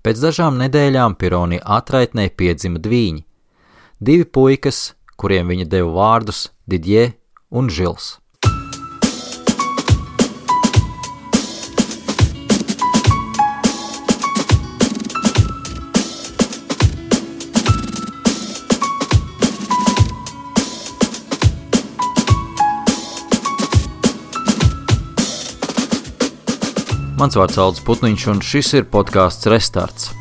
Pēc dažām nedēļām Pironi atraitnē piedzima dvīņi. 2 puikas, kuriem viņa deva vārdus Didjē un Žils. Mans vārds Aldis Putniņš, un šis ir podcasts Restarts.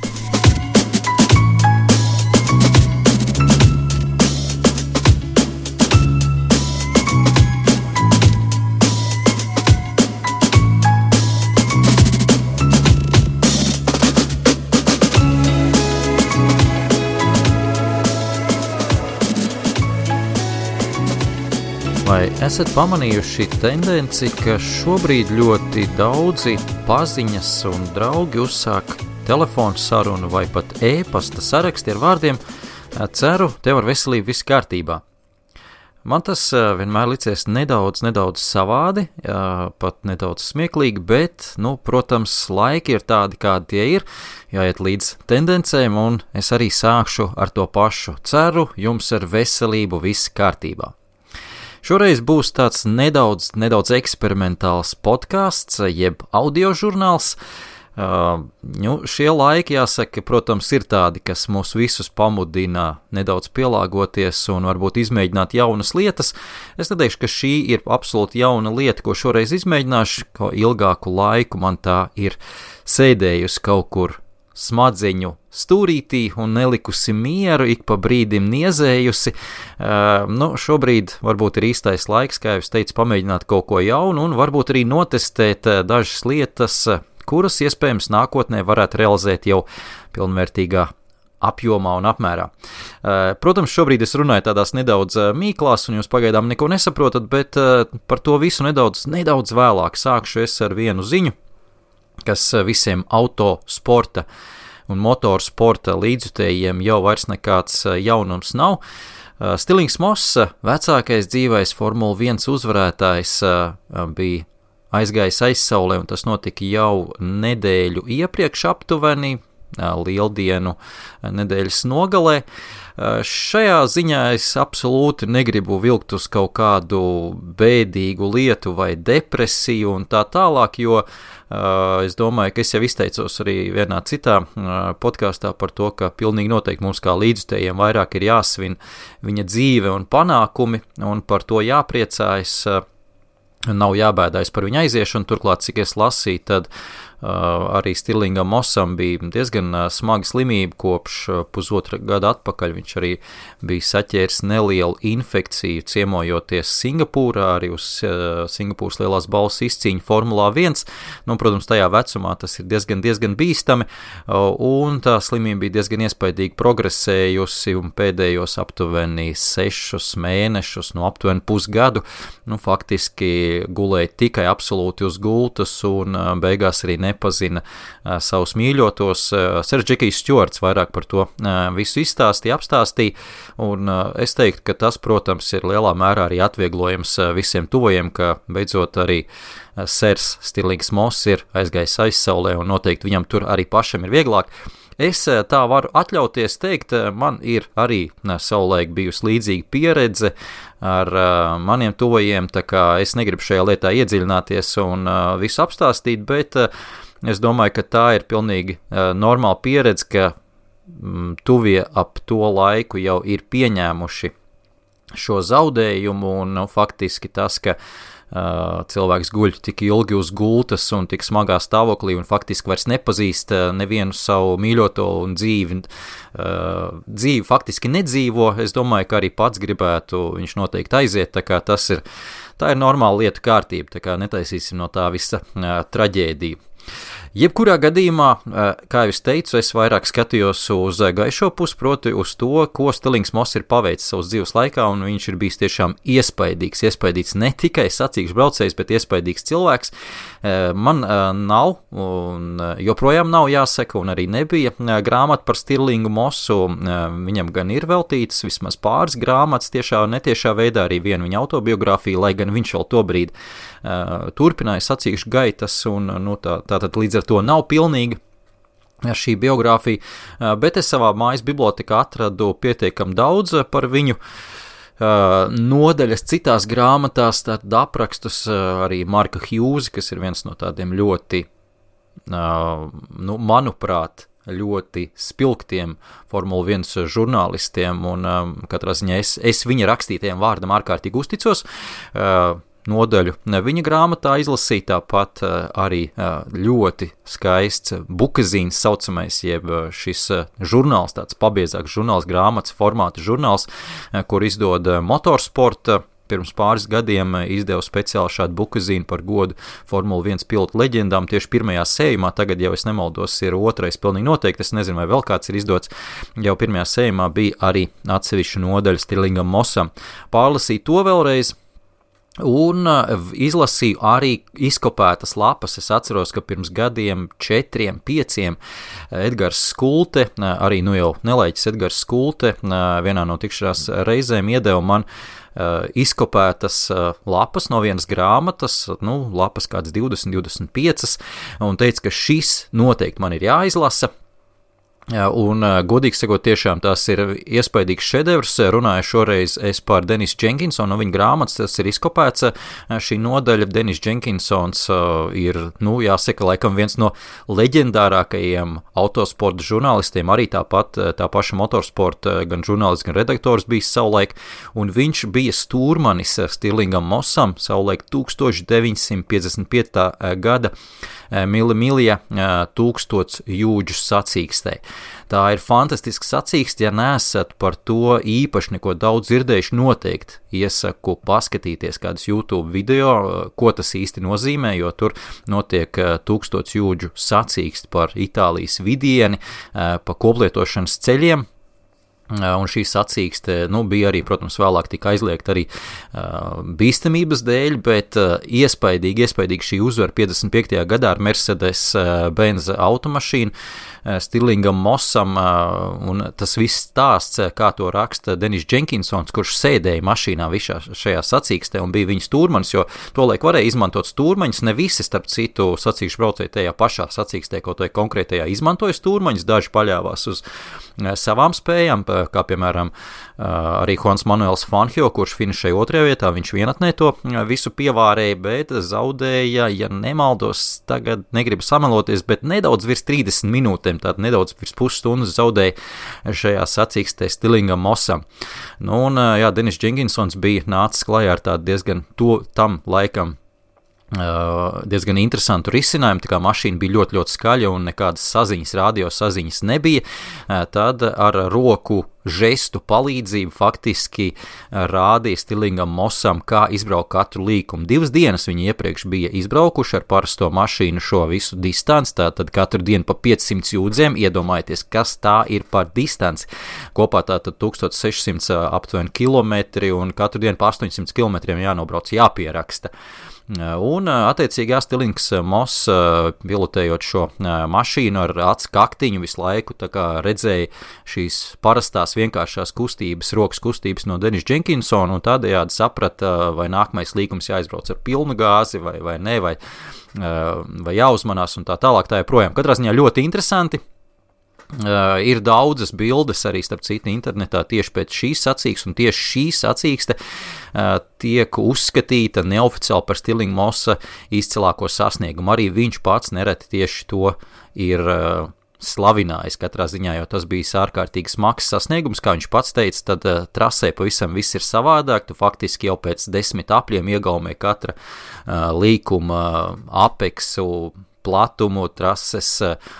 Vai esat pamanījuši tendenci, ka šobrīd ļoti daudzi paziņas un draugi uzsāk telefonu sarunu vai pat e-pasta saraksti ar vārdiem ceru, tev ar veselību viss kārtībā. Man tas vienmēr licies nedaudz savādi, pat nedaudz smieklīgi, bet, protams, laiki ir tādi, kādi tie ir, jāiet līdz tendencēm, un es arī sākšu ar to pašu. Ceru, jums ar veselību viss kārtībā. Šoreiz būs tāds nedaudz eksperimentāls podcasts, jeb audiožurnāls. Šie laiki, jāsaka, protams, ir tādi, kas mūs visus pamudina nedaudz pielāgoties un varbūt izmēģināt jaunas lietas. Es neteikšu, ka šī ir absolūti jauna lieta, ko šoreiz izmēģināšu, ko ilgāku laiku man tā ir sēdējusi kaut kur smadzeņu stūrītī un nelikusi mieru, ik pa brīdim niezējusi. Šobrīd varbūt ir īstais laiks, kā jau es teicu, pamēģināt kaut ko jaunu un varbūt arī notestēt dažas lietas, kuras iespējams nākotnē varētu realizēt jau pilnvērtīgā apjomā un apmērā. Protams, šobrīd es runāju tādās nedaudz mīklās un jūs pagaidām neko nesaprotat, bet par to visu nedaudz vēlāk sākšu es ar vienu ziņu, kas visiem autosporta un motorsporta līdzjutējiem jau vairs nekāds jaunums nav. Stirlings Moss, vecākais dzīvais Formula 1 uzvarētājs, bija aizgājis aizsaulē, un tas notika jau nedēļu iepriekš aptuveni, Lieldienu nedēļas nogalē. Šajā ziņā es absolūti negribu vilkt uz kaut kādu bēdīgu lietu vai depresiju un tā tālāk, jo es domāju, ka es jau izteicos arī vienā citā podkāstā par to, ka pilnīgi noteikti mums kā līdzjutējiem vairāk ir jāsvin viņa dzīve un panākumi, un par to jāpriecājas, nav jābēdājas par viņa aiziešanu. Turklāt, cik es lasīju, tad arī Stirlingam Mossam bija diezgan smaga slimība kopš pusotra gada atpakaļ. Viņš arī bija saķēris nelielu infekciju ciemojoties Singapūrā, arī uz Singapūras lielās balvas izcīņu Formulā 1. Protams, tajā vecumā tas ir diezgan bīstami, un tā slimība bija diezgan iespaidīgi progresējusi, un pēdējos aptuveni 6 mēnešus, aptuveni pusgadu, faktiski gulēja tikai absolūti uz gultas, un beigās arī nepazina savus mīļotos. Sers Džekijs Stjuarts vairāk par to visu apstāstīja, un es teiktu, ka tas, protams, ir lielā mērā arī atvieglojums visiem tuvajiem, ka beidzot arī Sers Stirlings Moss ir aizgājis aizsaulē, un noteikti viņam tur arī pašam ir vieglāk. Es tā varu atļauties teikt, man ir arī savulaik bijusi līdzīga pieredze ar maniem tuvajiem, tā kā es negribu šajā lietā iedziļināties un visu apstāstīt, bet es domāju, ka tā ir pilnīgi normāla pieredze, ka tuvie ap to laiku jau ir pieņēmuši šo zaudējumu, un faktiski tas, ka cilvēks guļ tik ilgi uz gultas un tik smagā stāvoklī un faktiski vairs nepazīst nevienu savu mīļoto un dzīvi faktiski nedzīvo. Es domāju, ka arī pats gribētu viņš noteikti aiziet, tā kā tā ir normāla lietu kārtība, tā kā netaisīsim no tā visa traģēdiju. Jebkurā gadījumā, kā jau es teicu, es vairāk skatījos uz gaišo pusi, proti uz to, ko Stirlings Moss ir paveicis savas dzīves laikā, un viņš ir bijis tiešām iespaidīgs ne tikai sacīkšu braucējs, bet iespaidīgs cilvēks. Man nav, un joprojām nav jāsaka, un arī nebija grāmata par Stirlingu Mossu. Viņam gan ir veltītas vismaz pāris grāmatas tiešā un netiešā veidā, arī viena viņa autobiogrāfija, lai gan viņš vēl tobrīd turpināja sacīkšu gaitas, un tātad līdz ar to nav pilnīga. šī biogrāfija, bet es savā mājas bibliotekā atradu pietiekami daudz par viņu nodaļas citās grāmatās, tad aprakstus arī Marka Hjūza, kas ir viens no tādiem ļoti, manuprāt, ļoti spilgtiem Formula 1 žurnālistiem, un katrā ziņā es viņa rakstītajiem vārdam ārkārtīgi uzticos. Nodaļu viņa grāmatā izlasīja, tāpat arī ļoti skaists bukazīns saucamais, jeb šis žurnāls, tāds pabiezāks žurnāls, grāmatas formāta žurnāls, kur izdod Motorsporta. Pirms pāris gadiem izdevu speciāli šādu bukazīnu par godu Formula 1 pilotu leģendām tieši pirmajā sējumā, tagad jau es nemaldos ir otrais pilnīgi noteikti, es nezinu vai vēl kāds ir izdots, jau pirmajā sējumā bija arī atsevišķa nodaļa Stirlingam Mossam. Pārlasīju to vēlreiz, un izlasīju arī izkopētas lapas. Es atceros, ka pirms gadiem 4, 5 Edgars Skulte, arī jau nelaiķis Edgars Skulte, vienā no tikšanās reizēm iedeva man izkopētas lapas no vienas grāmatas, lapas kāds 20, 25, un teica, ka šis noteikti man ir jāizlasa. Un, godīgi sakot, tiešām tas ir iespaidīgs šedevrs. Runāju šoreiz es par Denisu Jenkinsonu, no viņa grāmatas, tas ir izkopēts šī nodaļa. Denis Jenkinsons ir, jāsaka, laikam viens no leģendārākajiem autosporta žurnālistiem, arī tāpat tā paša motorsporta gan žurnālists, gan redaktors bijis savulaik, un viņš bija stūrmanis Stirlingam Mossam savulaik 1955. Gada Milija 1000 jūdžu sacīkstē. Tā ir fantastiska sacīkste, ja neesat par to īpaši neko daudz dzirdējuši, noteikti iesaku paskatīties kādus YouTube video, ko tas īsti nozīmē, jo tur notiek 1000 jūdžu sacīkste par Itālijas vidieni, pa koplietošanas ceļiem. Un šī sacīkste, bija arī, protams, vēlāk tika aizliegta arī bīstamības dēļ, bet iespaidīgi šī uzvara 55. gadā ar Mercedes-Benz automašīnu Stirlingam Mossam, un tas viss stāsts, kā to raksta Denis Jenkinsons, kurš sēdēja mašīnā visā šajā sacīkstē un bija viņa stūrmanis, jo tolaik varēja izmantot stūrmaņus, ne visi, starp citu, sacīkšu braucēji tajā pašā sacīkstē, kaut vai konkrētajā izmantoja stūrmaņus, daži paļāvās uz savām spējām, kā piemēram arī Juans Manuels Fangio, kurš finišēja 2. vietā, viņš vienatnē to visu pievārēja, bet zaudēja, ja nemaldos, tagad negribu sameloties, bet nedaudz virs 30 minūtēm, tātad nedaudz virs pusstundas zaudēja šajā sacīkstē Stirlingam Mossam. Denis Jenkinsons bija nācis klajā ar tādu diezgan tam laikam diezgan interesantu risinājumu, tā kā mašīna bija ļoti, ļoti skaļa un nekādas saziņas, radio saziņas nebija, tad ar roku žestu palīdzību faktiski rādīja Stirlingam Mossam, kā izbraukt katru līkumu. 2 dienas viņi iepriekš bija izbraukuši ar parasto mašīnu šo visu distanci, tātad katru dienu pa 500 jūdzēm, iedomājieties, kas tā ir par distanci. Kopā tātad 1600 aptuveni kilometri un katru dienu pa 800 kilometriem jānobrauc, jāpieraksta. Un attiecīgi Stirlings Moss pilotējot šo mašīnu ar acu kaktiņu visu laiku, tā kā redzēja šīs parastās vienkāršās kustības, rokas kustības no Denisa Jenkinsona un tādējādi saprata, vai nākamais līkums jāizbrauc ar pilnu gāzi vai ne, vai jāuzmanās un tā tālāk, tā joprojām. Katrā ziņā ļoti interesanti. Ir daudzas bildes arī starp citu internetā tieši pēc šīs sacīkstes, un tieši šī sacīkste tiek uzskatīta neoficiāli par Stirlinga Mossa izcilāko sasniegumu. Arī viņš pats nereti tieši to ir slavinājis katrā ziņā, jo tas bija ārkārtīgi smags sasniegums, kā viņš pats teica, tad trasē pavisam viss ir savādāk, tu faktiski jau pēc 10 apļiem iegaumē katra līkuma apeksu, platumu, trases,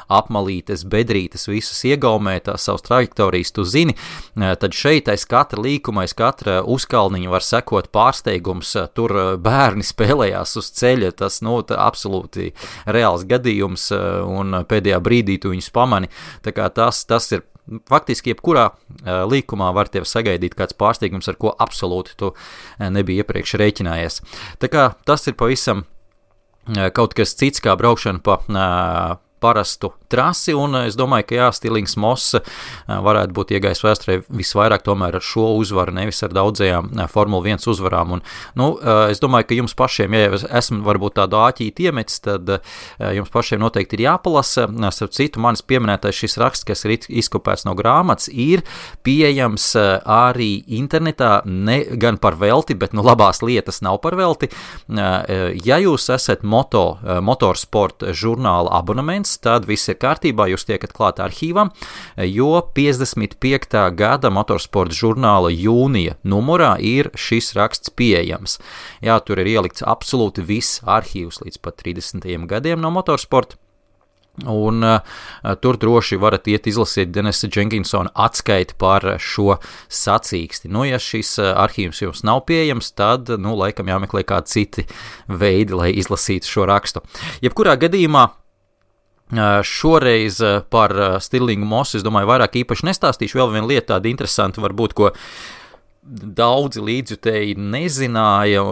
apmalītes, bedrītes, visus iegaumē, tās savas trajektorijas tu zini, tad šeit aiz katra līkuma, aiz katra uzkalniņa var sekot pārsteigums, tur bērni spēlējās uz ceļa, tas, absolūti reāls gadījums, un pēdējā brīdī tu viņus pamani, tā kā tas ir faktiski jebkurā līkumā var tev sagaidīt kāds pārsteigums, ar ko absolūti tu nebija iepriekš rēķinājies. Tā kā tas ir pavisam kaut kas cits kā braukšana pa parastu trasi, un es domāju, ka Stirlings Moss varētu būt iegājis vēsturē visvairāk tomēr ar šo uzvaru, nevis ar daudzajām Formula 1 uzvarām. Un, es domāju, ka jums pašiem, ja esmu varbūt tādu āķīti iemetis, tad jums pašiem noteikti ir jāpalasa. Starp citu, manis pieminētais šis raksts, kas ir izkopēts no grāmatas, ir pieejams arī internetā, ne gan par velti, bet labās lietas nav par velti. Ja jūs esat motorsporta žurnāla abonements, tad viss ir kārtībā, jūs tiekat klāt arhīvam, jo 55. gada motorsporta žurnāla jūnija numurā ir šis raksts pieejams. Jā, tur ir ielikts absolūti viss arhīvs līdz pat 30. gadiem no motorsporta. Un tur droši varat iet izlasīt Denisa Jenkinsona atskaiti par šo sacīksti. Ja šis arhīvs jums nav pieejams, tad, laikam jāmeklē kādi citi veidi, lai izlasītu šo rakstu. Jebkurā gadījumā šoreiz par Stirlingu Mossu, es domāju, vairāk īpaši nestāstīšu. Vēl viena lieta tāda interesanta varbūt, ko daudzi līdzjutēji nezināja,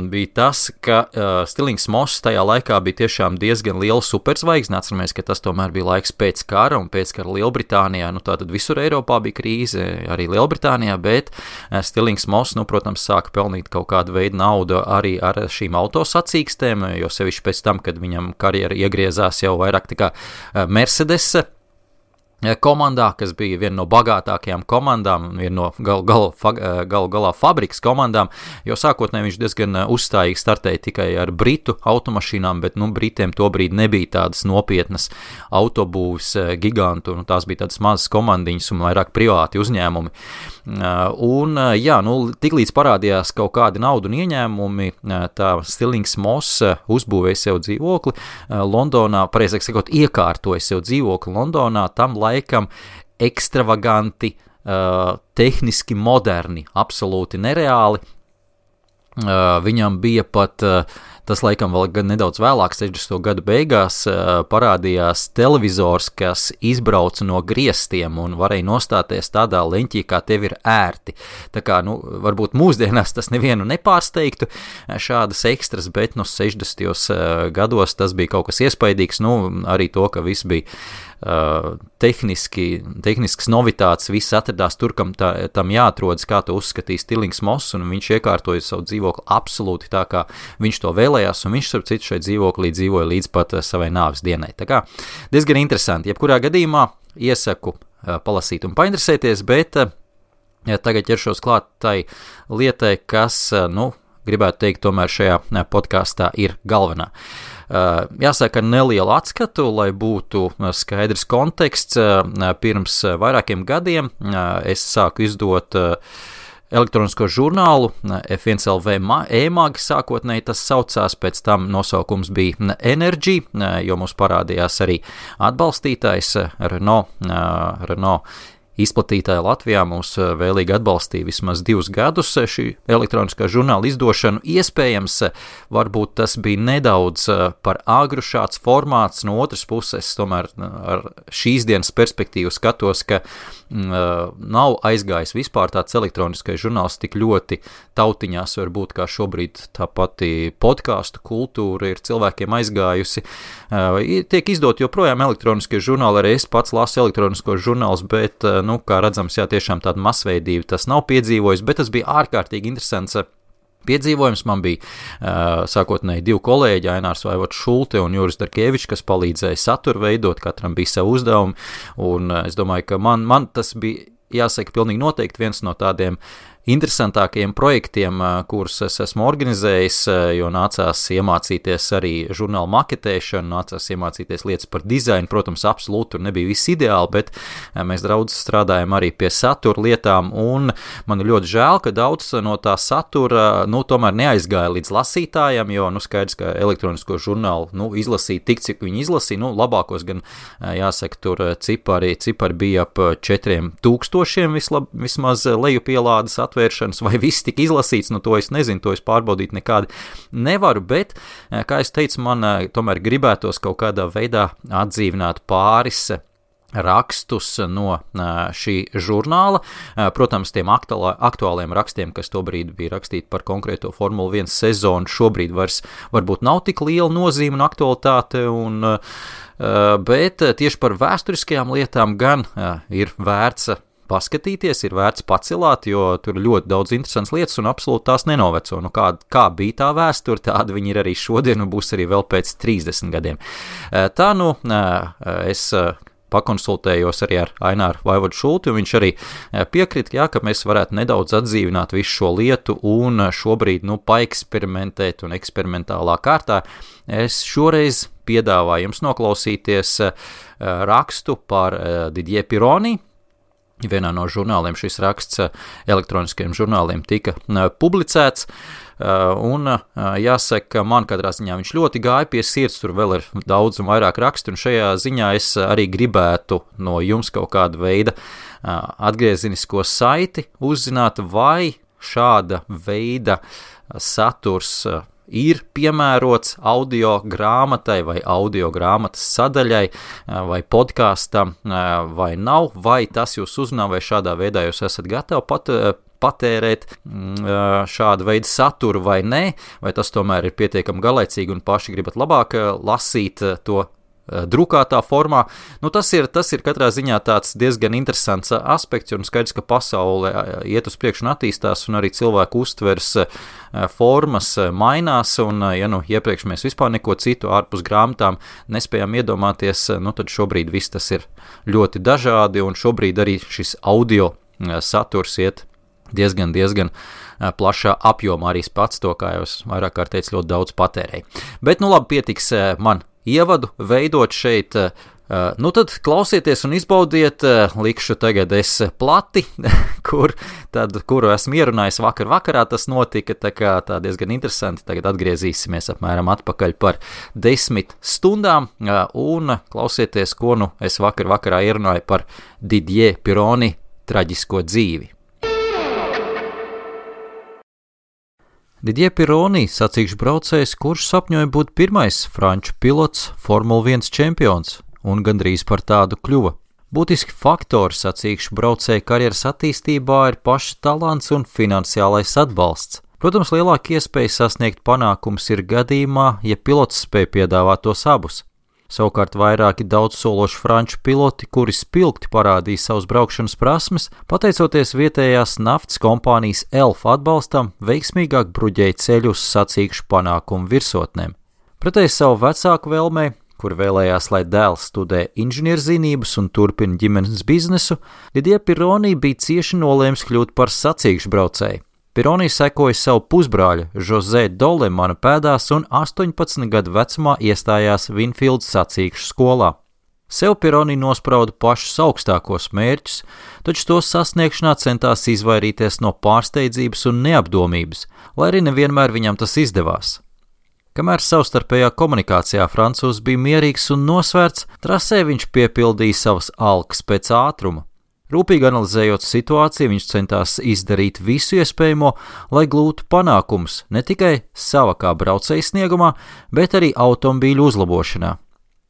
bija tas, ka Stirlings Moss tajā laikā bija tiešām diezgan liela superzvaigzne. Atceramies, ka tas tomēr bija laiks pēc kara un pēc kara Lielbritānijā. Tātad visur Eiropā bija krīze, arī Lielbritānijā, bet Stirlings Moss, protams, sāka pelnīt kaut kādu veidu naudu arī ar šīm autosacīkstēm, jo sevišķi pēc tam, kad viņam karjera iegriezās jau vairāk tā kā Mercedes komandā, kas bija viena no bagātākajām komandām, viena no galā fabrikas komandām, jo sākotnēji viņš diezgan uzstājīgi startēja tikai ar britu automašīnām, bet Britiem tobrīd nebija tādas nopietnas autobūves gigantu, tās bija tādas mazas komandiņas un vairāk privāti uzņēmumi. Un, tiklīdz parādījās kaut kādi naudu un ieņēmumi, tā Stirlings Moss uzbūvēja sev dzīvokli Londonā, pareizāk sakot, iekārtoja sev dzīvokli Londonā, tam laikam ekstravaganti, tehniski moderni, absolūti nereāli. Viņam bija pat, tas laikam vēl gan nedaudz vēlāk, 60. gadu beigās, parādījās televizors, kas izbrauca no griestiem un varēja nostāties tādā leņķī, kā tev ir ērti. Tā kā, varbūt mūsdienās tas nevienu nepārsteigtu šādas ekstras, bet 60. gados tas bija kaut kas iespaidīgs, arī to, ka viss bija tehnisks novitāts, viss atradās tur, kam tam jāatrodas, kā to uzskatīja Stirlings Moss, un viņš iekārtoja savu dzīvokli absolūti tā, kā viņš to vēlējās, un viņš, starp citu, šeit dzīvoklī dzīvoja līdz pat savai nāves dienai. Tā kā diezgan interesanti. Jebkurā gadījumā iesaku palasīt un painteresēties, bet tagad ķeršos klāt tai lietai, kas, gribētu teikt, tomēr šajā podkastā ir galvenā. Jāsaka nelielu atskatu, lai būtu skaidrs konteksts. Pirms vairākiem gadiem es sāku izdot elektronisko žurnālu F1LV e-mag, sākotnēji tas saucās, pēc tam nosaukums bija Energy, jo mums parādījās arī atbalstītājs Renault izplatītāja Latvijā mūs vēlīgi atbalstīja vismaz 2 gadus šī elektroniskā žurnāla izdošanu. Iespējams, varbūt tas bija nedaudz par agru šāds formāts, no otras puses, tomēr ar šīs dienas perspektīvu skatos, ka nav aizgājis vispār tāds elektroniskais žurnāls tik ļoti tautiņās, varbūt kā šobrīd tā pati podcastu kultūra ir cilvēkiem aizgājusi. Tiek izdot joprojām elektroniskie žurnāli, arī es pats lasu elektroniskos žurnālus, bet kā redzams, tiešām tāda masveidība tas nav piedzīvojis, bet tas bija ārkārtīgi interesants piedzīvojums. Man bija sākotnēji 2 kolēģi, Ainārs Vaivots Šulte un Juris Darkevičs, kas palīdzēja saturu veidot, katram bija savu uzdevumu, un es domāju, ka man tas bija, jāsaka, pilnīgi noteikti viens no tādiem interesantākajiem projektiem, kurus es esmu organizējis, jo nācās iemācīties arī žurnālu maketēšanu, nācās iemācīties lietas par dizainu. Protams, absolūti tur nebija viss ideāli, bet mēs daudz strādājam arī pie satura lietām, un man ir ļoti žēl, ka daudz no tā satura, tomēr neaizgāja līdz lasītājiem, jo, skaidrs, ka elektronisko žurnālu, izlasīt tik, cik viņi izlasīja, labākos gan, jāsaka, tur cipari bija ap 4000 vismaz lejupielādes atvēršanas, vai viss tika izlasīts, to es nezinu, to es pārbaudīt nekādi nevaru, bet, kā es teicu, man tomēr gribētos kaut kādā veidā atdzīvināt pāris rakstus no šī žurnāla. Protams, tiem aktuāliem rakstiem, kas tobrīd bija rakstīti par konkrēto Formula 1 sezonu, šobrīd vairs varbūt nav tik liela nozīme un aktualitāte, bet tieši par vēsturiskajām lietām gan ir vērts paskatīties, ir vērts pacilāt, jo tur ir ļoti daudz interesants lietas un absolūti tās nenoveco. Nu, kā bija tā vēsture, tāda viņi ir arī šodien un būs arī vēl pēc 30 gadiem. Tā es pakonsultējos arī ar Aināru Vaivodu Šulti, un viņš arī piekrita, ka mēs varētu nedaudz atdzīvināt visu šo lietu un šobrīd paeksperimentēt un eksperimentālā kārtā. Es šoreiz piedāvāju jums noklausīties rakstu par Didier Pironi. Vienā no žurnāliem šis raksts elektroniskajiem žurnāliem tika publicēts, un jāsaka, man katrā ziņā viņš ļoti gāja pie sirds, tur vēl ir daudz un vairāk rakstu, un šajā ziņā es arī gribētu no jums kaut kādu veidu atgriezenisko saiti uzzināt, vai šāda veida saturs ir piemērots audio grāmatai vai audio grāmatas sadaļai vai podkāstam vai nav, vai tas jūs uzrunā, vai šādā veidā jūs esat gatavi patērēt šādu veidu saturu vai nē, vai tas tomēr ir pietiekami garlaicīgi un paši gribat labāk lasīt to drukātā formā. Tas ir katrā ziņā tāds diezgan interesants aspekts, un skaidrs, ka pasaule iet uz priekšu un attīstās, un arī cilvēku uztvers formas mainās, un iepriekš mēs vispār neko citu ārpus grāmatām nespējām iedomāties, tad šobrīd viss tas ir ļoti dažādi, un šobrīd arī šis audio saturs iet diezgan plašā apjomā, arī pats to, kā jau es vairāk kārt teicu, ļoti daudz patērēju. Bet labi, pietiks man ievadu veidot šeit, tad klausieties un izbaudiet, likšu tagad es plati, kuru esmu ierunājis vakarā, tas notika, tā diezgan interesanti, tagad atgriezīsimies apmēram atpakaļ par 10 stundām, un klausieties, ko es vakarā ierunāju par Didier Pironi traģisko dzīvi. Didier Pironi, sacīkšu braucējs, kurš sapņoja būt pirmais franču pilots, Formula 1 čempions, un gandrīz par tādu kļuva. Būtiski faktori sacīkšu braucēja karjeras attīstībā ir paša talants un finansiālais atbalsts. Protams, lielāka iespēja sasniegt panākums ir gadījumā, ja pilots spēj piedāvāt tos abus. Savukārt vairāki daudzsološi franču piloti, kuri spilgti parādīja savus braukšanas prasmes, pateicoties vietējās naftas kompānijas ELF atbalstam, veiksmīgāk bruģēja ceļu uz sacīkšu panākumu virsotnēm. Pretēji savu vecāku vēlmei, kur vēlējās, lai dēls studē inženierzinības un turpina ģimenes biznesu, Didier Pironi bija cieši nolēms kļūt par sacīkšu braucēju. Pironi sekoja savu pusbrāļu José Dolemana pēdās un 18 gadu vecumā iestājās Winfields sacīkšu skolā. Sev Pironi nosprauda pašus augstākos mērķus, taču to sasniegšanā centās izvairīties no pārsteidzības un neapdomības, lai arī nevienmēr viņam tas izdevās. Kamēr savstarpējā komunikācijā francūzs bija mierīgs un nosvērts, trasē viņš piepildīja savas alkas pēc ātruma. Rūpīgi analizējot situāciju, viņš centās izdarīt visu iespējamo, lai gūtu panākumus ne tikai sava kā braucēja sniegumā, bet arī automobīļu uzlabošanā.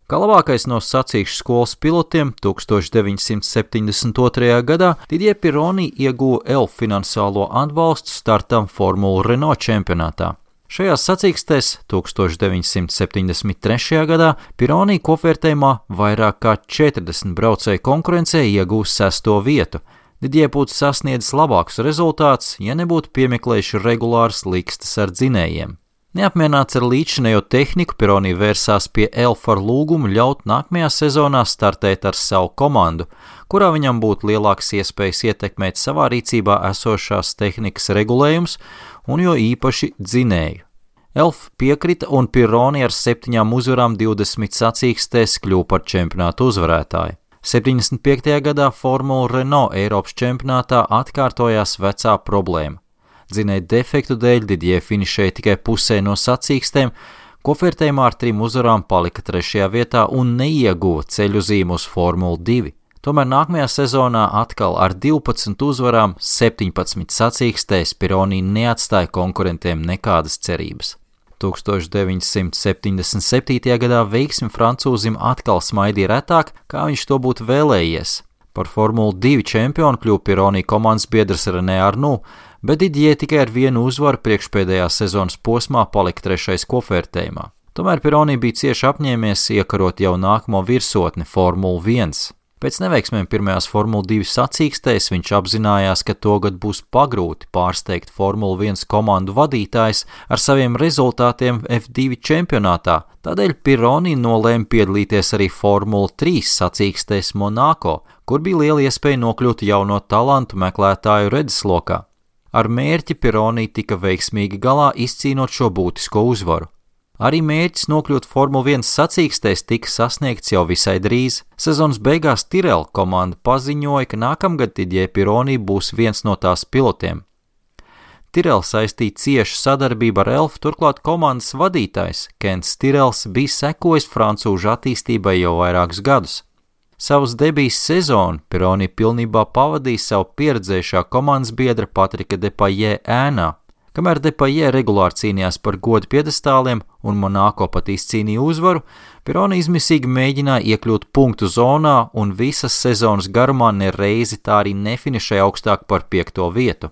Kā labākais no sacīkšu skolas pilotiem 1972. gadā Didier Pironi ieguva ELF finansiālo atbalstu startam Formula Renault čempionātā. Šajās sacīkstēs 1973. gadā Pironi kopvērtējumā vairāk kā 40 braucēju konkurencē iegūs 6. vietu. Didier būtu sasniedzis labākus rezultātus, ja nebūtu piemeklējuši regulāras likstas ar dzinējiem. Neapmierināts ar līdzinējo tehniku, Pironi vērsās pie ELF ar lūgumu ļaut nākamajā sezonā startēt ar savu komandu, kurā viņam būtu lielākas iespējas ietekmēt savā rīcībā esošās tehnikas regulējums un jo īpaši dzinēju. ELF piekrita un Pironi ar 7 uzvarām 20 sacīkstēs kļuva par čempionātu uzvarētāju. 75. gadā Formula Renault Eiropas čempionātā atkārtojās vecā problēma. Dzinēju defektu dēļ Didier finišēja tikai pusē no sacīkstēm, kopvērtējumā ar 3 uzvarām palika 3. vietā un neieguva ceļu zīmu uz Formulu 2. Tomēr nākamajā sezonā atkal ar 12 uzvarām 17 sacīkstēs Pironi neatstāja konkurentiem nekādas cerības. 1977. gadā veiksmi francūzim atkal smaidīja retāk, kā viņš to būtu vēlējies. Par Formula 2 čempionu kļuva Pironi komandas biedrs René Arnoux, bet Didier tikai ar vienu uzvaru priekšpēdējā sezonas posmā palika 3. kopvērtējumā. Tomēr Pironi bija cieši apņēmies iekarot jau nākamo virsotni Formula 1. Pēc neveiksmēm pirmajās Formula 2 sacīkstēs viņš apzinājās, ka togad būs pagrūti pārsteigt Formula 1 komandu vadītājs ar saviem rezultātiem F2 čempionātā, tādēļ Pironi nolēma piedalīties arī Formula 3 sacīkstēs Monako, kur bija liela iespēja nokļūt jauno talantu meklētāju redzeslokā. Ar mērķi Pironi tika veiksmīgi galā izcīnot šo būtisko uzvaru. Arī mērķis nokļūt Formula 1 sacīkstēs tika sasniegts jau visai drīz. Sezonas beigās Tyrrell komanda paziņoja, ka nākamgad Didier Pironi būs viens no tās pilotiem. Tyrrell saistīja ciešu sadarbību ar Elfu, turklāt komandas vadītājs Kents Tyrrells bija sekojis francūžu attīstībai jau vairākus gadus. Savas debijas sezonu Pironi pilnībā pavadīja savu pieredzējušā komandas biedra Patrika Depailler ēnā. Kamēr Depailler regulāri cīnījās par godu piedestāliem un Monako pat izcīnīja uzvaru, Pironi izmisīgi mēģināja iekļūt punktu zonā un visas sezonas garumā nereizi tā arī nefinišēja augstāk par 5. vietu.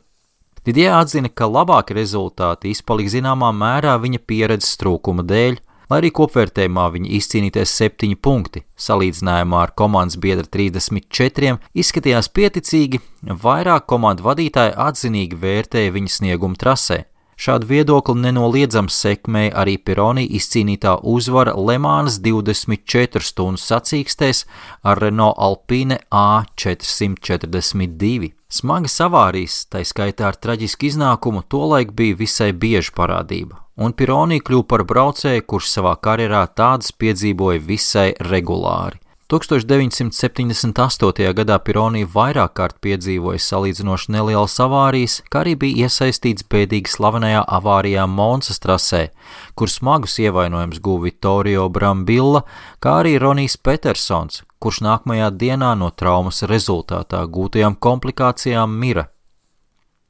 Didier atzina, ka labāki rezultāti izpalika zināmā mērā viņa pieredzes trūkuma dēļ, lai arī kopvērtējumā viņa izcīnīties 7 punkti, salīdzinājumā ar komandas biedra 34 izskatījās pieticīgi, vairāk komandu vadītāji atzinīgi vērtēja viņa sniegumu trasē. Šādu viedokli nenoliedzams sekmēja arī Pironi izcīnītā uzvara Lemānas 24 stundu sacīkstēs ar Renault Alpine A442. Smagas avārijas, tai skaitā ar traģisku iznākumu, tolaik bija visai bieža parādība, un Pironi kļuva par braucēju, kurš savā karjerā tādas piedzīvoja visai regulāri. 1978. gadā Pironi vairāk kārt piedzīvoja salīdzinoši nelielas avārijas, kā arī bija iesaistīts bēdīgi slavenajā avārijā Monsas trasē, kur smagus ievainojumus guva Vittorio Brambilla, kā arī Ronijs Petersons, kurš nākamajā dienā no traumas rezultātā gūtajām komplikācijām mira.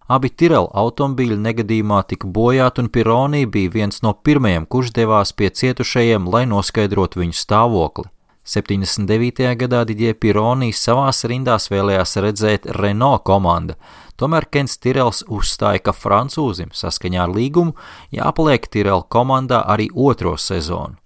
Abi Tyrrell automobīļi negadījumā tika bojāti, un Pironi bija viens no pirmajiem, kurš devās pie cietušajiem, lai noskaidrotu viņu stāvokli. 79. gadā Didier Pironi savās rindās vēlējās redzēt Renault komanda, tomēr Kents Tyrrells uzstāja, ka francūzim saskaņā ar līgumu jāpaliek Tyrrell komandā arī 2. sezonu.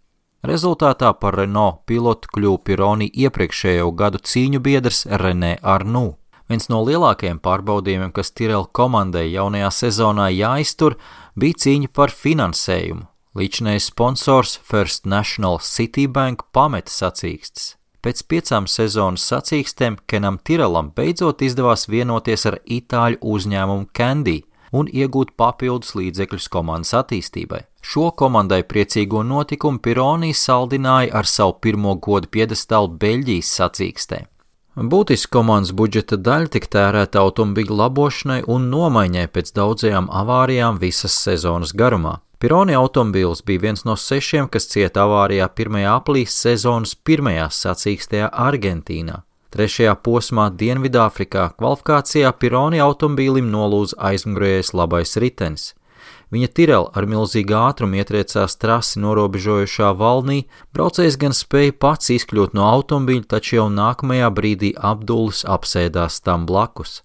Rezultātā par Renault pilotu kļuva Pironi iepriekšējo gadu cīņu biedrs René Arnoux. Viens no lielākajiem pārbaudījumiem, kas Tyrrell komandai jaunajā sezonā jāiztur, bija cīņa par finansējumu. Līdzinējais sponsors First National Citibank pameta sacīkstes. Pēc 5 sezonas sacīkstēm Kenam Tyrrellam beidzot izdevās vienoties ar itāļu uzņēmumu Candy un iegūt papildus līdzekļus komandas attīstībai. Šo komandai priecīgo notikumu Pironi saldināja ar savu pirmo godu piedestālu Beļģijas sacīkstē. Būtiski komandas budžeta daļa tika tērēta automobīļu labošanai un nomaiņai pēc daudzajām avārijām visas sezonas garumā. Pironi automobīls bija viens no 6, kas cieta avārijā 1. aprīlī sezonas 1. sacīkstē Argentīnā. 3. posmā Dienvidāfrikā kvalifikācijā Pironi automobīlim nolūza aizmugurējais labais ritenis. Viņa Tyrrell ar milzīgu ātrumu ietriecās trasi norobežojušā valnī, braucējs gan spēja pats izkļūt no automobīļa, taču jau nākamajā brīdī Abdulis apsēdās tam blakus.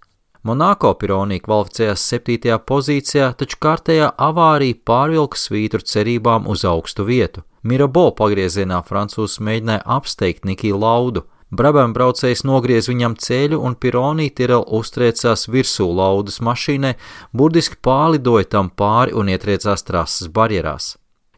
Monako Pironi kvalificējās 7. pozīcijā, taču kārtējā avārija pārvilka svītru cerībām uz augstu vietu. Mirabeau pagriezienā francūzs mēģināja apsteigt Nikiju Laudu. Brabham braucējs nogriez viņam ceļu, un Pironi Tyrrell uztriecās virsū Laudas mašīnai, burtiski pārlidoja tam pāri un ietriecās trases barjerās.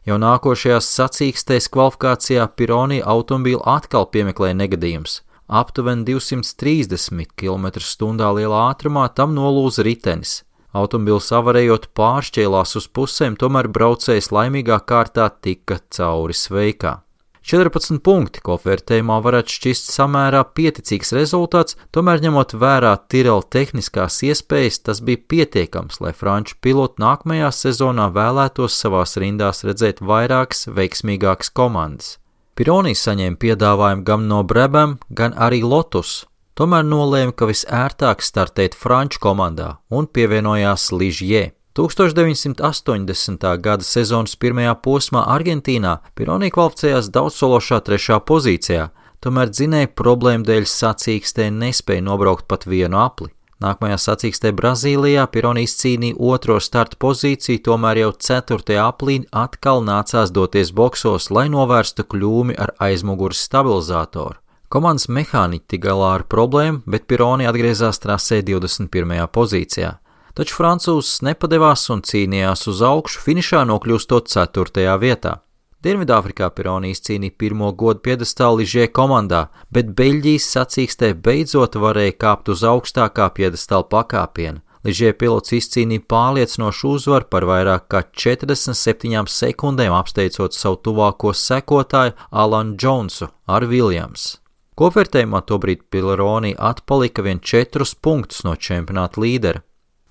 Jau nākošajās sacīkstēs kvalifikācijā Pironi automobīlu atkal piemeklēja negadījums. Aptuveni 230 km/h lielā ātrumā tam nolūza ritenis. Automobils avarējot pāršķēlās uz pusēm, tomēr braucējs laimīgā kārtā tika cauri sveikā. 14 punkti kopvērtējumā varētu šķist samērā pieticīgs rezultāts, tomēr ņemot vērā Tyrrell tehniskās iespējas, tas bija pietiekams, lai franču piloti nākamajā sezonā vēlētos savās rindās redzēt vairākas veiksmīgākas komandas. Pironi saņēma piedāvājumu gan no Brabham, gan arī Lotus, tomēr nolēma, ka visērtāk startēt franču komandā un pievienojās Ligier. 1980. gada sezonas pirmajā posmā Argentīnā Pironi kvalificējās daudzsološā 3. pozīcijā, tomēr dzinēja problēmu dēļ sacīkstē nespēja nobraukt pat vienu apli. Nākamajā sacīkstē Brazīlijā Pironi izcīnīja 2. starta pozīciju, tomēr jau 4. aplī atkal nācās doties boksos, lai novērstu kļūmi ar aizmugures stabilizātoru. Komandas mehāniķi tik galā ar problēmu, bet Pironi atgriezās trasē 21. pozīcijā. Taču francūzs nepadevās un cīnījās uz augšu, finišā nokļūstot 4. vietā. Dienvidāfrikā Pironi izcīnīja pirmo godu piedestālu Ligier komandā, bet Beļģijas sacīkstē beidzot varēja kāpt uz augstākā piedestāla pakāpiena. Ligier pilots izcīnīja pārliecinošu uzvaru par vairāk kā 47 sekundēm, apsteidzot savu tuvāko sekotāju Alanu Džonsu ar Williams. Kopvērtējumā tobrīd Pironi atpalika vien 4 punktus no čempionāta līdera.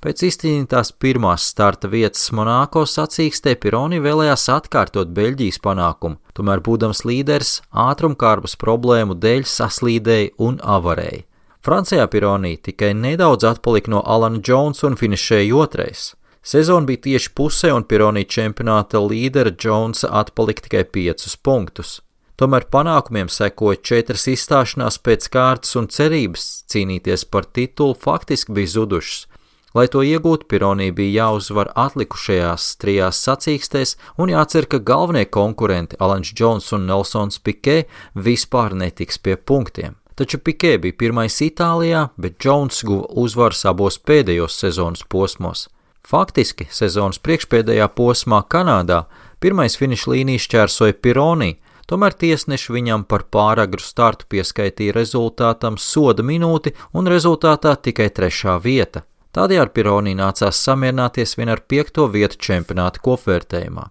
Pēc izcīnītās pirmās starta vietas Monako sacīkstē Pironi vēlējās atkārtot Beļģijas panākumu, tomēr būdams līderis ātrumkārbas problēmu dēļ saslīdēja un avarēja. Francijā Pironi tikai nedaudz atpalika no Alana Jonesa un finišēja 2. Sezona bija tieši pusē un Pironi čempionāta līdera Jonesa atpalika tikai 5 punktus. Tomēr panākumiem sekoja 4 izstāšanās pēc kārtas un cerības cīnīties par titulu faktiski bija zudušas. Lai to iegūtu, Pironi bija jāuzvar atlikušajās 3 sacīkstēs un jācer, ka galvenie konkurenti Alans Džons un Nelsons Pikē vispār netiks pie punktiem. Taču Pikē bija pirmais Itālijā, bet Džons guva uzvaras abos pēdējos sezonas posmos. Faktiski sezonas priekšpēdējā posmā Kanādā pirmais finiša līniju šķērsoja Pironi, tomēr tiesneši viņam par pāragru startu pieskaitīja rezultātam soda minūti un rezultātā tikai 3. vieta. Tādējādi Pironi nācās samierināties vien ar 5. vietu čempionāta kopvērtējumā.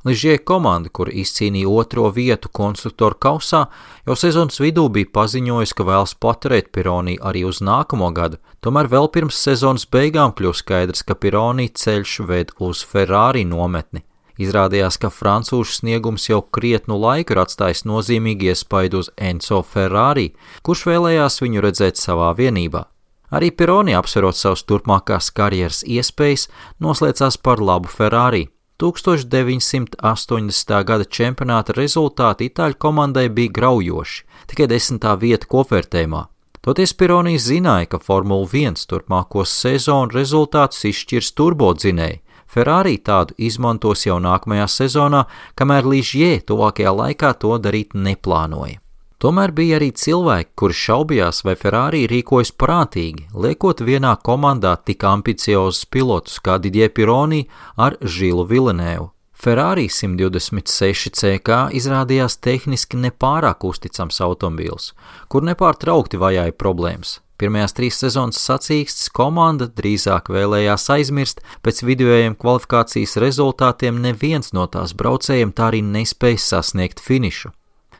Ligier komanda, kur izcīnīja 2. vietu konstruktoru kausā, jau sezonas vidū bija paziņojusi, ka vēlas paturēt Pironi arī uz nākamo gadu, tomēr vēl pirms sezonas beigām kļuva skaidrs, ka Pironi ceļš ved uz Ferrari nometni. Izrādījās, ka francūžu sniegums jau krietnu laiku ir atstājis nozīmīgi iespaidu uz Enzo Ferrari, kurš vēlējās viņu redzēt savā vienībā. Arī Pironi, apsverot savas turpmākās karjeras iespējas, noslēdzās par labu Ferrari. 1980. gada čempionāta rezultāti itāļu komandai bija graujoši, tikai 10. vieta kopvērtējumā. Toties Pironi zināja, ka Formula 1 turpmāko sezonu rezultātus izšķirs turbodzinēji. Ferrari tādu izmantos jau nākamajā sezonā, kamēr Ligier tuvākajā laikā to darīt neplānoja. Tomēr bija arī cilvēki, kuri šaubījās, vai Ferrari rīkojas prātīgi, liekot vienā komandā tik ambiciozus pilotus kā Didier Pironi ar Žilu Villeneuvu. Ferrari 126 CK izrādījās tehniski nepārāk uzticams automobīls, kur nepārtraukti vajāja problēmas. Pirmajās 3 sezonas sacīkstes komanda drīzāk vēlējās aizmirst, pēc vidējiem kvalifikācijas rezultātiem neviens no tās braucējiem tā arī nespēja sasniegt finišu.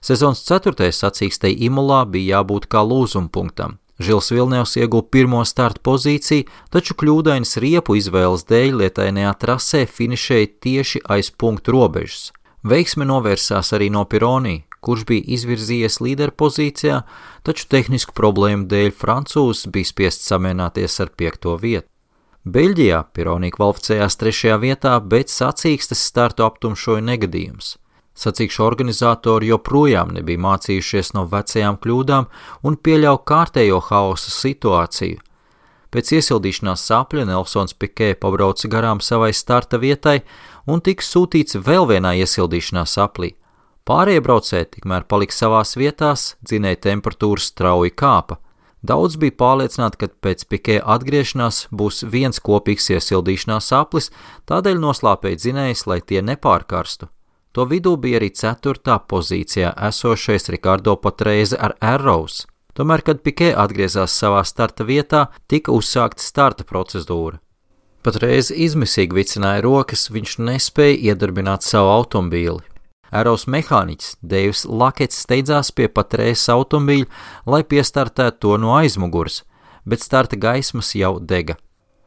Sezonas 4. sacīkstei Imolā bija jābūt kā lūzumpunktam. Žils Villeneuves ieguva 1. starta pozīciju, taču kļūdainas riepu izvēles dēļ lietainajā trasē finišēja tieši aiz punktu robežas. Veiksme novērsās arī no Pironi, kurš bija izvirzījies līderpozīcijā, taču tehnisku problēmu dēļ francūzs bija spiests samierināties ar 5. vietu. Beļģijā Pironi kvalificējās 3. vietā, bet sacīkstes startu aptumšoja negadījums. Sacīkšu organizatori joprojām nebija mācījušies no vecajām kļūdām un pieļauj kārtējo haosa situāciju. Pēc iesildīšanās sapļa Nelsons Pikē pabrauca garām savai starta vietai un tika sūtīts vēl vienā iesildīšanās saplī. Pārējie braucēji tikmēr palika savās vietās, dzinēja temperatūras strauji kāpa. Daudz bija pārliecināti, ka pēc Pikē atgriešanās būs viens kopīgs iesildīšanās saplis, tādēļ noslāpēja dzinējs, lai tie nepārkarstu. To vidū bija arī 4. pozīcijā esošais Ricardo Patrese ar Arrows. Tomēr, kad Pikē atgriezās savā starta vietā, tika uzsākta starta procedūra. Patrese izmisīgi vicināja rokas, viņš nespēja iedarbināt savu automobīli. Arrows mehāniķis Deivs Lakets steidzās pie Patrese automobīļa, lai piestartētu to no aizmugures, bet starta gaismas jau dega.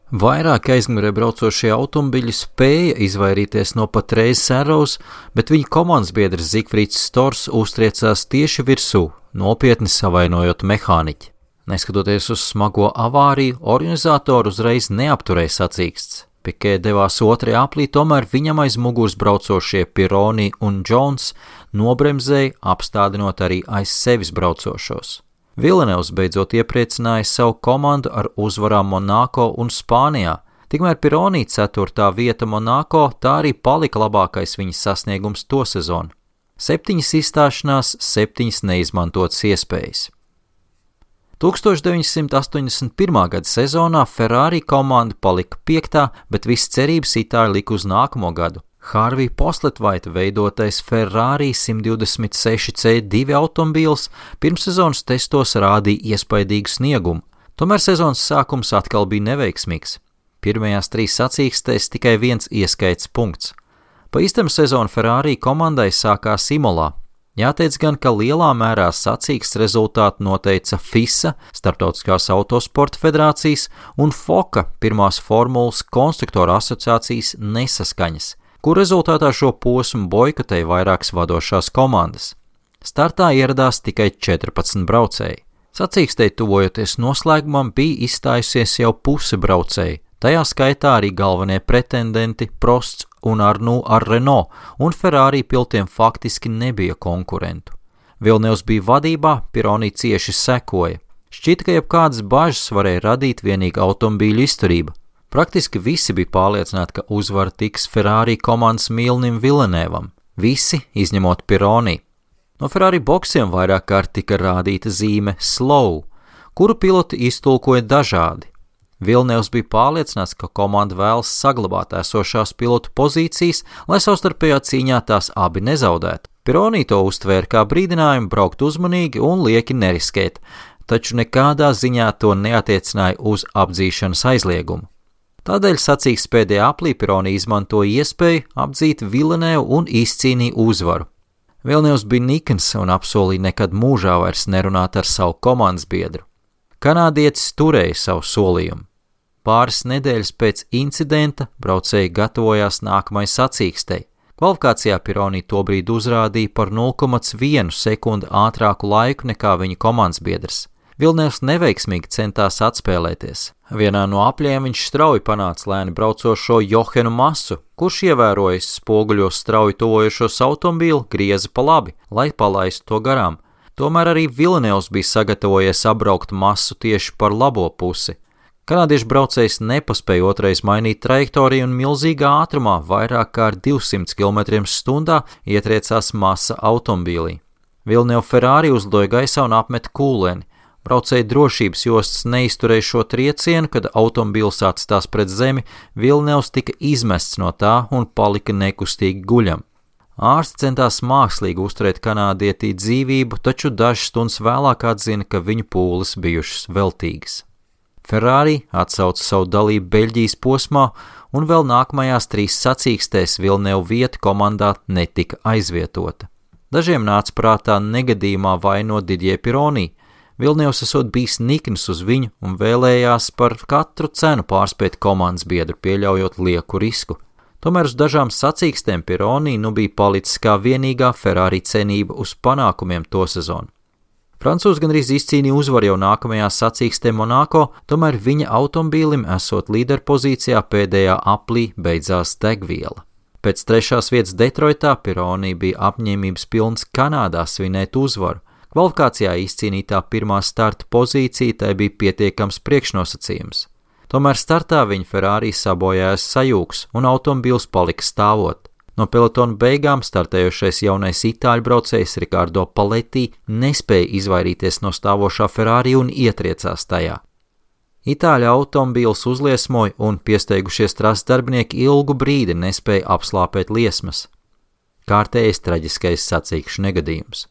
Vairāk aizmugurē braucošie automobiļi spēja izvairīties no Patrese Arrows, bet viņa komandas biedrs Zigfrīds Stors uztriecās tieši virsū, nopietni savainojot mehāniķi. Neskatoties uz smago avāriju, organizatori uzreiz neapturēja sacīksts. Pikē devās otrajā aplī, tomēr viņam aiz muguras braucošie Pironi un Jones nobremzēja, apstādinot arī aiz sevis braucošos. Villeneuves beidzot iepriecināja savu komandu ar uzvarām Monako un Spānijā. Tikmēr Pironi 4. vieta Monako tā arī palika labākais viņa sasniegums to sezonu. 7 izstāšanās, 7 neizmantotas iespējas. 1981. gada sezonā Ferrari komanda palika 5., bet viss cerības itāļi lika uz nākamo gadu. Harvija Postlethwaita veidotais Ferrari 126C2 automobīls pirmssezonas testos rādīja iespaidīgu sniegumu, tomēr sezonas sākums atkal bija neveiksmīgs. Pirmajās 3 sacīkstēs tikai 1 ieskaits punkts. Pa īstam sezonu Ferrari komandai sākās Imolā. Jāteic gan, ka lielā mērā sacīksts rezultātu noteica FISA, Starptautiskās autosporta federācijas, un FOCA, pirmās formulas konstruktoru asociācijas nesaskaņas, kur rezultātā šo posmu boikotēja vairākas vadošās komandas. Startā ieradās tikai 14 braucēji. Sacīkstei tuvojoties noslēgumam bija izstājusies jau puse braucēji, tajā skaitā arī galvenie pretendenti Prosts un Arnoux ar Renault, un Ferrari pilotiem faktiski nebija konkurentu. Villeneuves bija vadībā, Pironi cieši sekoja. Šķita, ka jebkādas bažas varēja radīt vienīgi automobīļu izturība. Praktiski visi bija pārliecināti, ka uzvara tiks Ferrari komandas mīlnim Villeneuvam. Visi, izņemot Pironi. No Ferrari boksiem vairāk kārt tika rādīta zīme slow, kuru piloti iztulkoja dažādi. Villeneuves bija pārliecināts, ka komanda vēlas saglabāt esošās pilotu pozīcijas, lai savstarpējā cīņā tās abi nezaudētu. Pironi to uztvēra kā brīdinājumu braukt uzmanīgi un lieki neriskēt, taču nekādā ziņā to neatiecināja uz apdzīšanas aizliegumu. Tādēļ sacīks pēdējā aplī Pironi izmantoja iespēju apdzīt Villeneuvu un izcīnīja uzvaru. Villeneuves bija nikns un apsolīja nekad mūžā vairs nerunāt ar savu komandas biedru. Kanādietis turēja savu solījumu. Pāris nedēļas pēc incidenta braucēji gatavojās nākamai sacīkstei. Kvalifikācijā Pironi tobrīd uzrādīja par 0,1 sekundi ātrāku laiku nekā viņa komandas biedrs. Villeneuves neveiksmīgi centās atspēlēties. Vienā no apļiem viņš strauji panāca lēni braucošo Johenu Masu, kurš ievērojis spoguļos strauji tuvojošos automobīlu, grieza pa labi, lai palaistu to garām. Tomēr arī Villeneuves bija sagatavojies apbraukt Masu tieši par labo pusi. Kanādiešu braucējs nepaspēja otrais mainīt trajektoriju un milzīgā ātrumā vairāk kā ar 200 km/h ietriecās Masa automobīlī. Villeneuve Ferrari uzlidoja gaisā un apmeta kūleni. Braucēja drošības jostas neizturēja šo triecienu, kad automobīls atstās pret zemi, Villeneuves tika izmests no tā un palika nekustīgi guļam. Ārsti centās mākslīgi uzturēt kanādietī dzīvību, taču dažas stundas vēlāk atzina, ka viņu pūles bijušas veltīgas. Ferrari atsauca savu dalību Beļģijas posmā, un vēl nākamajās 3 sacīkstēs Villeneuve vieta komandā netika aizvietota. Dažiem nāca prātā negadījumā vainot Didier Pironi. Villeneuves esot bijis nikns uz viņu un vēlējās par katru cenu pārspēt komandas biedru, pieļaujot lieku risku. Tomēr uz dažām sacīkstēm Pironi nu bija palicis kā vienīgā Ferrari cenība uz panākumiem to sezonu. Francūzi gandrīz izcīnīja uzvaru jau nākamajā sacīkstē Monako, tomēr viņa automobīlim esot līderpozīcijā pēdējā aplī beidzās degviela. Pēc 3. vietas Detroitā Pironi bija apņēmības pilns Kanādā svinēt uzvaru. Kvalifikācijā izcīnītā pirmā starta pozīcija tai bija pietiekams priekšnosacījums. Tomēr startā viņa Ferrari sabojājās sajūgs un automobīls palika stāvot. No pelotona beigām startējošais jaunais itāļu braucējs Ricardo Paletti nespēja izvairīties no stāvošā Ferrari un ietriecās tajā. Itāļu automobīls uzliesmoja un piesteigušies trases darbinieki ilgu brīdi nespēja apslāpēt liesmas. Kārtējais traģiskais sacīkšu negadījums.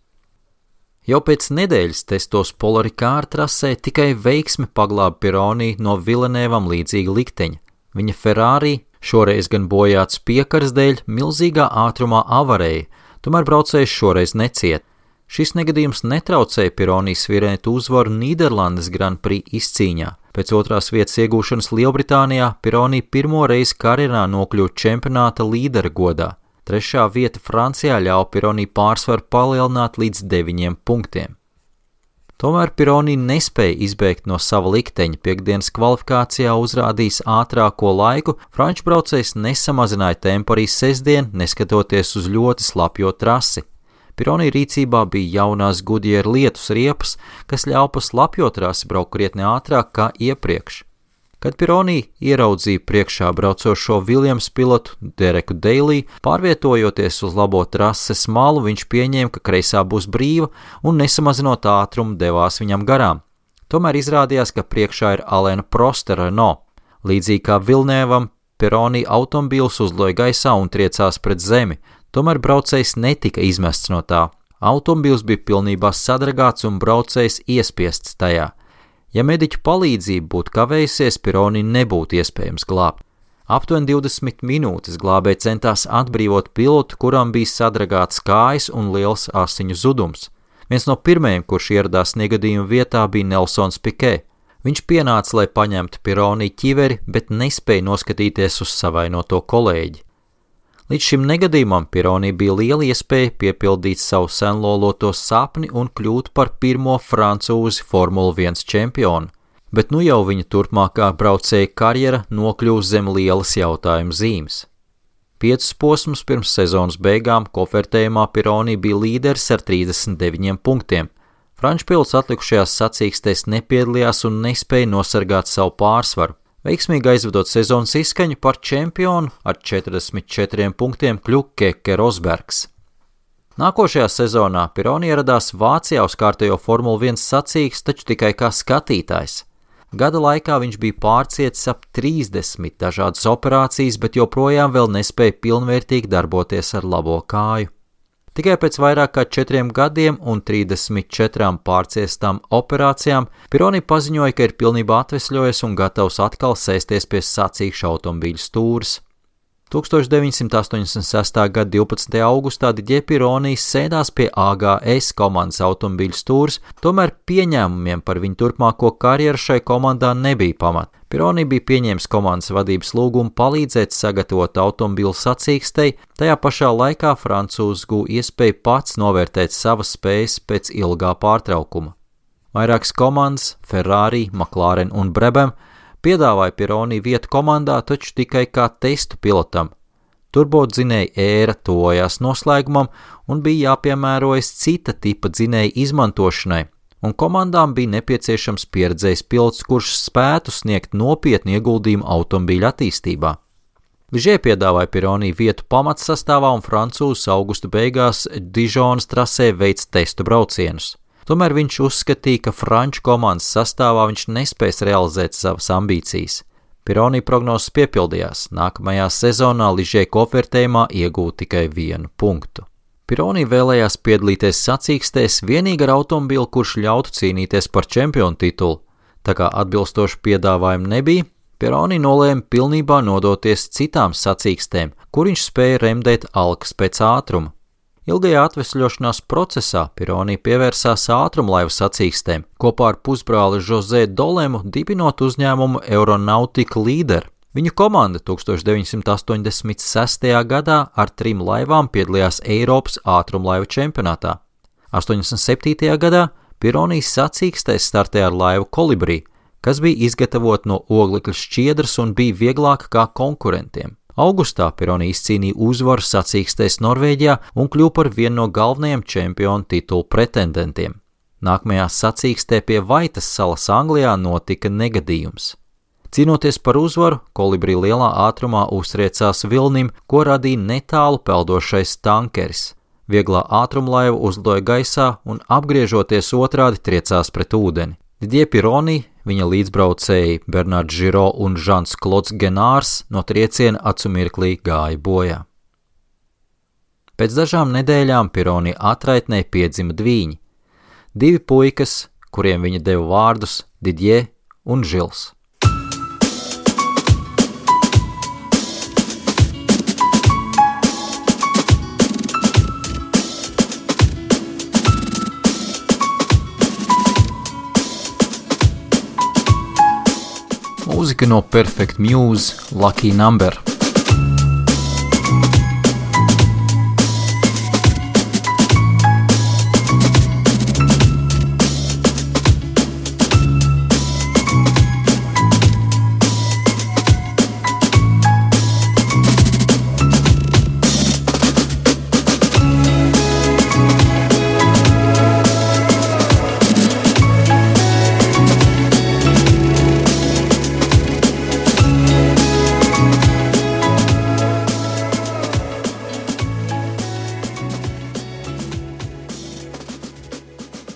Jau pēc nedēļas testos Polaricāra trasē tikai veiksme paglāba Pironi no Villeneuvam līdzīga likteņa. Viņa Ferrari šoreiz gan bojāts piekaras dēļ milzīgā ātrumā avarēja, tomēr braucējs šoreiz neciet. Šis negadījums netraucēja Pironi svirēt uzvaru Nīderlandes Grand Prix izcīņā. Pēc 2. vietas iegūšanas Lielbritānijā Pironi pirmo reizi karjerā nokļuva čempionāta līdera godā. 3. vieta Francijā ļauj Pironi pārsvaru palielināt līdz 9 punktiem. Tomēr Pironi nespēja izbēgt no sava likteņa. Piektdienas kvalifikācijā uzrādījis ātrāko laiku, franču braucējs nesamazināja tempu arī sestdien, neskatoties uz ļoti slapjo trasi. Pironi rīcībā bija jaunās Goodyear lietus riepas, kas ļauj pa slapjo trasi braukt krietni ātrāk kā iepriekš. Kad Pironi ieraudzīja priekšā braucošo Williams pilotu Dereku Deilī, pārvietojoties uz labo trases malu, viņš pieņēma, ka kreisā būs brīva un nesamazinot ātrumu devās viņam garām. Tomēr izrādījās, ka priekšā ir Alaina Prostera Renault. Līdzīgi kā Villeneuvam, Pironi automobīls uzloja gaisā un triecās pret zemi, tomēr braucējs netika izmests no tā. Automobīls bija pilnībā sadragāts un braucējs iespiests tajā. Ja mediķu palīdzība būtu kavējusies, Pironi nebūtu iespējams glābt. Aptuveni 20 minūtes glābēji centās atbrīvot pilotu, kuram bija sadragāts kājas un liels asiņu zudums. Viens no pirmajiem, kurš ieradās negadījuma vietā, bija Nelsons Piquet. Viņš pienāca, lai paņemtu Pironi ķiveri, bet nespēja noskatīties uz savainoto kolēģi. Līdz šim negadījumam Pironi bija liela iespēja piepildīt savu senloloto sapni un kļūt par pirmo francūzi Formula 1 čempionu, bet nu jau viņa turpmākā braucēja karjera nokļūst zem lielas jautājuma zīmes. 5 posmus pirms sezonas beigām kofertējumā Pironi bija līderis ar 39 punktiem. Franču pilots atlikušajās sacīkstēs nepiedalījās un nespēja nosargāt savu pārsvaru. Veiksmīgi aizvedot sezonas izskaņu par čempionu ar 44 punktiem kļuva Keke Rosbergs. Nākošajā sezonā Pironi ieradās Vācijā uz kārtējo Formula 1 sacīksti, taču tikai kā skatītājs. Gada laikā viņš bija pārcietis ap 30 dažādas operācijas, bet joprojām vēl nespēja pilnvērtīgi darboties ar labo kāju. Tikai pēc vairāk kā 4 gadiem un 34 pārciestām operācijām Pironi paziņoja, ka ir pilnībā atvesļojies un gatavs atkal sēsties pie sacīkšu automobīļu stūres. 1986. gada 12. augustā Didier Pironi sēdās pie AGS komandas automobīļu stūres, tomēr pieņēmumiem par viņu turpmāko karjeru šai komandā nebija pamata. Pironi bija pieņēmis komandas vadības lūgumu palīdzēt sagatavot automobīlu sacīkstei, tajā pašā laikā francūzs guva iespēju pats novērtēt savas spējas pēc ilgā pārtraukuma. Vairākas komandas, Ferrari, McLaren un Brabham, piedāvāja Pironi vietu komandā, taču tikai kā testu pilotam. Turbodzinēja ēra tuvojās noslēgumam un bija jāpiemērojas cita tipa dzinēja izmantošanai, un komandām bija nepieciešams pieredzējis pilots, kurš spētu sniegt nopietnu ieguldījumu automobīļa attīstībā. Ligier piedāvāja Pironi vietu pamatsastāvā un francūzs augusta beigās Dižonas trasē veic testu braucienus. Tomēr viņš uzskatīja, ka franču komandas sastāvā viņš nespēs realizēt savas ambīcijas. Pironi prognozes piepildījās. Nākamajā sezonā Ligier kofertējumā iegūta tikai 1 punktu. Pironi vēlējās piedalīties sacīkstēs vienīgi ar automobīlu, kurš ļautu cīnīties par čempionu titulu. Tā kā atbilstošu piedāvājumu nebija, Pironi nolēma pilnībā nodoties citām sacīkstēm, kur viņš spēja remdēt alkas pēc ātruma. Ilgajā atvesļošanās procesā Pironi pievērsās ātrumlaivu sacīkstēm, kopā ar pusbrāli José Dolemu dibinot uzņēmumu Aeronautica Leader. Viņu komanda 1986. gadā ar 3 laivām piedalījās Eiropas ātrumlaivu čempionātā. 87. gadā Pironi sacīkstēs startēja ar laivu Kolibri, kas bija izgatavota no oglekļa šķiedras un bija vieglāka kā konkurentiem. Augustā Pironi izcīnīja uzvaru sacīkstēs Norvēģijā un kļuva par vienu no galvenajiem čempionu titulu pretendentiem. Nākamajā sacīkstē pie Vaitas salas Anglijā notika negadījums. Cīnoties par uzvaru, Kolibri lielā ātrumā uztriecās vilnim, ko radīja netālu peldošais tankeris. Vieglā ātrumlaiva uzlidoja gaisā un apgriežoties otrādi triecās pret ūdeni. Didier Pironi, viņa līdzbraucēji Bernards Giraud un Jean-Claude Genārs no trieciena acumirklī gāja bojā. Pēc dažām nedēļām Pironi atraitnē piedzima dvīņi. 2 puikas, kuriem viņa deva vārdus Didier un Žils. Mūzika no Perfect Muse, Lucky Number.